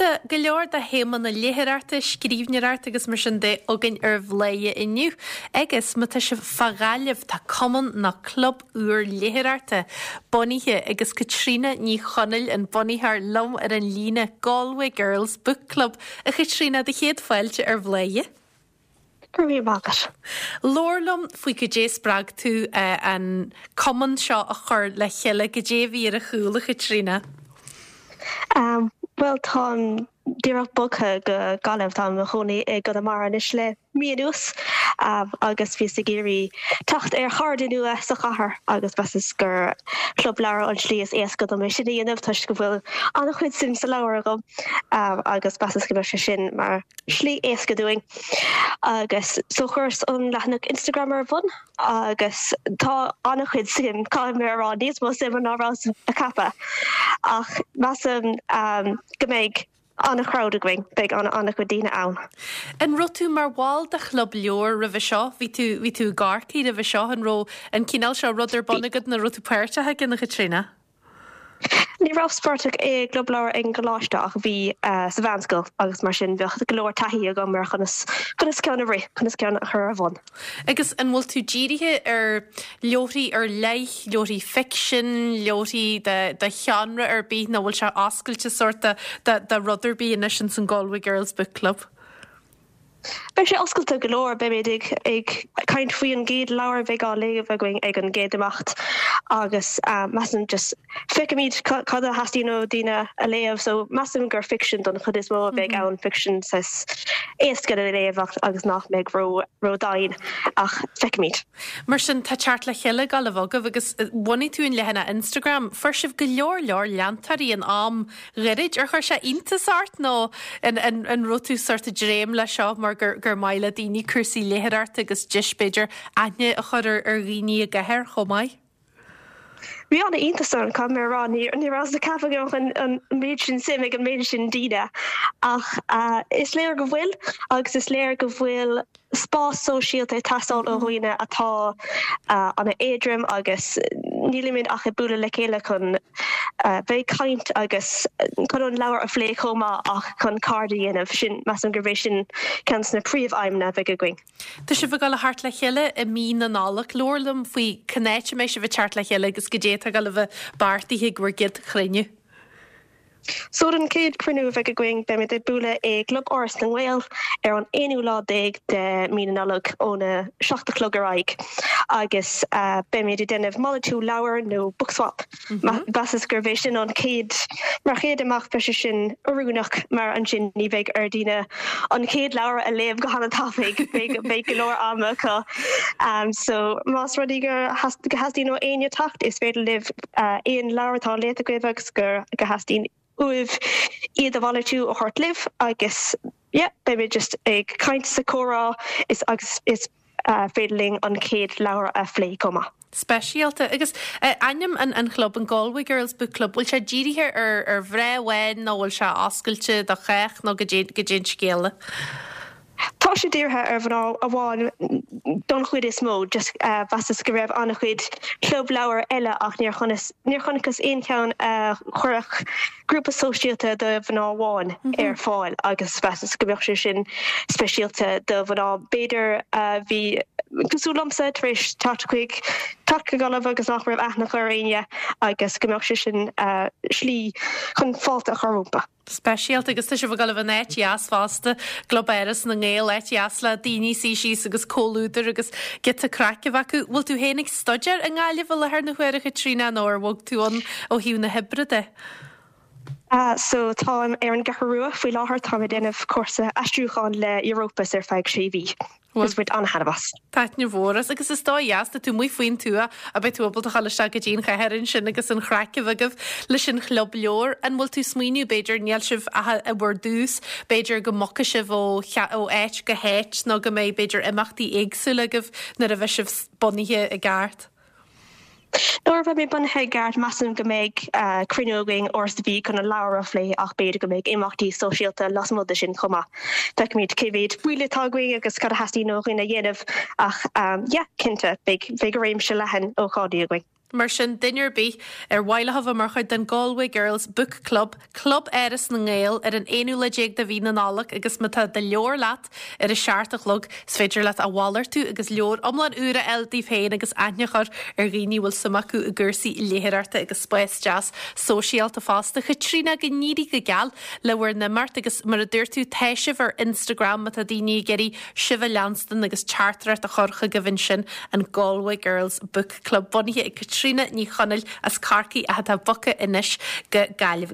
Tá go leor de théama na léitheoireachta, scríbhneoireachta agus mar sin de againn ar Bhladhaire inniu. Agus má tá sibh fá Ghaillimh, tá cumann nó club úr léitheoireachta bunaithe agus Caitríona Ní Chonaill an bunaitheoir liom ar an líne, Galway Girls Book Club. A Chaitríona, do chéad fáilte ar Bhladhaire. Go raibh míle maith agat. Labhair liom faoi goidé a spreag tú an cumann seo a chur le chéile, goidé a bhí ar a chúl, a Chaitríona? Bhuel, táim díreach bogtha go Gaillimh, táim i mo chónaí i gConamara anois le mí anuas agus bhíos ag iarraidh teacht ar chairde nua sa chathair agus mheasas gur club leabhar an tslí is éasca dom é sin a dhéanamh toisc go bhfuil an-chuid suim sa leabhar agam agus mheasas go mbeadh sé sin mar slí éasca dúinn agus so chuireas an leathanach Instagram ar bun agus tá an-chuid suim, caithfidh mé a rá, níos mó suime ná rabhas a cheapadh ach measaim go mbeidh an-chrowd againn, beidh an-chuid daoine ann. An raibh tú mar bhall de chlub leabhar roimhe seo? Bhí tú, bhí tú i gCorcaigh roimhe seo, an raibh an cineál seo rud ar bun agat nó raibh tú páirteach aige, a Chaitríona? Ní rabhas páirteach i gclub leabhar ag an gcoláiste ach bhí sa mheánscoil agus mar sin bheadh go leor taithí agam ar chonas conas ceann a rith, conas ceann a chur ar bhun. Agus an bhfuil tú dírithe ar leabharthaí ar leith, leabharthaí ficsin, leabharthaí de de sheánra ar bith nó bhfuil sé oscailte sórt de de de rud ar bith anois ins an Galway Girls Book Club? Beidh sé oscailte go leor, beimid ag caint faoi an gcéad leabhar a bheidh á léamh againn ag an gcéad imeacht agus measaim just feicfimid cad a theastaíonn ó daoine a léamh so measaim gur ficsean don chuid is mó a bheidh ann, ficsean saghas éasca le léamh agus nach mbeidh ró-dian ach feicfimid. Mar sin tá teacht le chéile ag gabháil a bheith agaibh agus bhunaigh tú an leathanach Instagram, fuair sibh go leor leor leantóirí in am ghairid. Ar chuir sé iontas ort nó an an raibh tú sórt ag dréim leis seo mar gur gur maith le daoine cúrsaí léitheoireachta agus deis b'fhéidir aithne a chur ar ar dhaoine i gcathair chomh maith? Bhí an-iontas orm, caithfidh mé a rá. Ní ní rabhas ag ceapadh go mbeadh an méid sin suim ag an méid sin daoine ach is léir go bhfuil agus is léir go bhfuil spás sóisialta ag teastáil ó dhaoine atá an-éadrom agus nílimid ach ag bualadh le chéile chun bheith ag caint agus chun an leabhar a phlé chomh maith ach chun cairde a dhéanamh. Sin, measaim gurb é sin ceann de na príomh-aidhmeanna a bheidh againn. Tá sibh ag dul a theacht le chéile i mí na Nollag. Labhair liom faoi cén áit a mbeidh sibh ag teacht le chéile agus goidé atá ag dul a bheith beartaithe ag bhur gcéad chruinniú. So don chéad chruinniú a bheidh againn, beimid ag bualadh i gClub Áras na nGael ar an aonú lá déag de mí na Nollag óna 7 a chlog ar aghaidh agus beimid ag déanamh malartú leabhar nó book swap. Mheasas gurb é sin an chéad, mar chéad imeacht beidh sé sin oiriúnach mar ansin ní bheidh ar daoine an chéad leabhar a léamh go han-tapaidh, beidh go leor ama acu. So más rud é go theastaíonn ó éinne teacht is féidir libh aon leabhar atá léite agaibh agus go theastaíonn uaibh iad a mhalartú a thabhairt libh agus yeah beimid just ag caint is ag comhrá is agus is féidir linn an chéad leabhar a phlé chomh maith. Speisialta. Agus ainm an an chlub, an Galway Girls Book Club, bhfuil sé dírithe ar ar mhná amháin nó bhfuil sé oscailte do chách nó goidé goidé an scéal? Tá sé dírithe ar mhná amháin don chuid is mó, just mheasas go raibh an-chuid club leabhar eile ach níor níor chonacthas aon cheann a chuirfeadh grúpa sóisialta do mhná amháin ar fáil agus mheasas go mbeadh sé sin speisialta do mhná b'fhéidir a bhí cosúil liomsa tar éis teacht chuig teacht go Gaillimh agus nach raibh aithne acu ar éinne agus go mbeadh sé sin slí chun fáilte a chur rompu. Speisialta agus tá sibh ag dul a bheith in áit dheas fosta, gClub Áras na nGael, áit dheas le daoine suí síos agus comhluadar agus giota craic a bheith acu. Bhfuil tú féin ag staidéar i nGaillimh i láthair na huaire, a Chaitríona, nó ar bhog tú ann ó thaobh na hoibre de? So táim ar an gCeathrú Rua faoi láthair, táim ag déanamh cúrsa aistriúcháin le Europus ar feadh sé mhí. Agus bhain an-thaitneamh as. Taitneamh mhór as. Agus is dóigh dheas, tá tú amuigh faoin tuath, a beidh tú ábalta a dhul isteach go dtí an chathair ansin agus an chraic a bheith agaibh leis an chlub leabhar. An bhfuil tú smaoineamh, b'fhéidir, níl sibh ach i bhur dtús, b'fhéidir go mbogfaidh sibh ó ó áit go háit nó go mbeidh, b'fhéidir, imeachtaí éagsúla agaibh nuair a bheidh sibh bunaithe i gceart? Nuair a bheimid bunaithe i gceart, measaim go mbeidh cruinniú againn uair sa mhí chun an leabhar a phlé ach b'fhéidir go mbeidh imeachtaí sóisialta lasmuigh de sin chomh maith. Feicfimid cé mhéad baill atá againn agus cad a theastaíonn ó dhaoine a dhéanamh ach yeah, cinnte, beidh réimse leathan ócáidí againn. Mar sin, duine ar bith ar mhaith leo a bheith mar chuid den Galway Girls Book Club, Club Áras na nGael, ar an aonú lá déag de mhí na Nollag agus má tá do leabhar leat ar a seacht a chlog, is féidir leat a mhalartú agus leabhar iomlán úr a fháil daoibh féin agus aithne a chur ar dhaoine a bhfuil suim acu i gcúrsaí léitheoireachta agus spás deas sóisialta fosta. Chaitríona, go n-éirí go geal le bhur n-imeacht agus mar a dúirt tú, tá sibh ar Instagram má tá daoine ag iarraidh sibh a leanstan agus teachtaireacht a chur chugaibh ansin, an Galway Girls Book Club bunaithe ag Caitríona Ní Chonaill as Corcaigh ach atá bogtha anois go Gaillimh.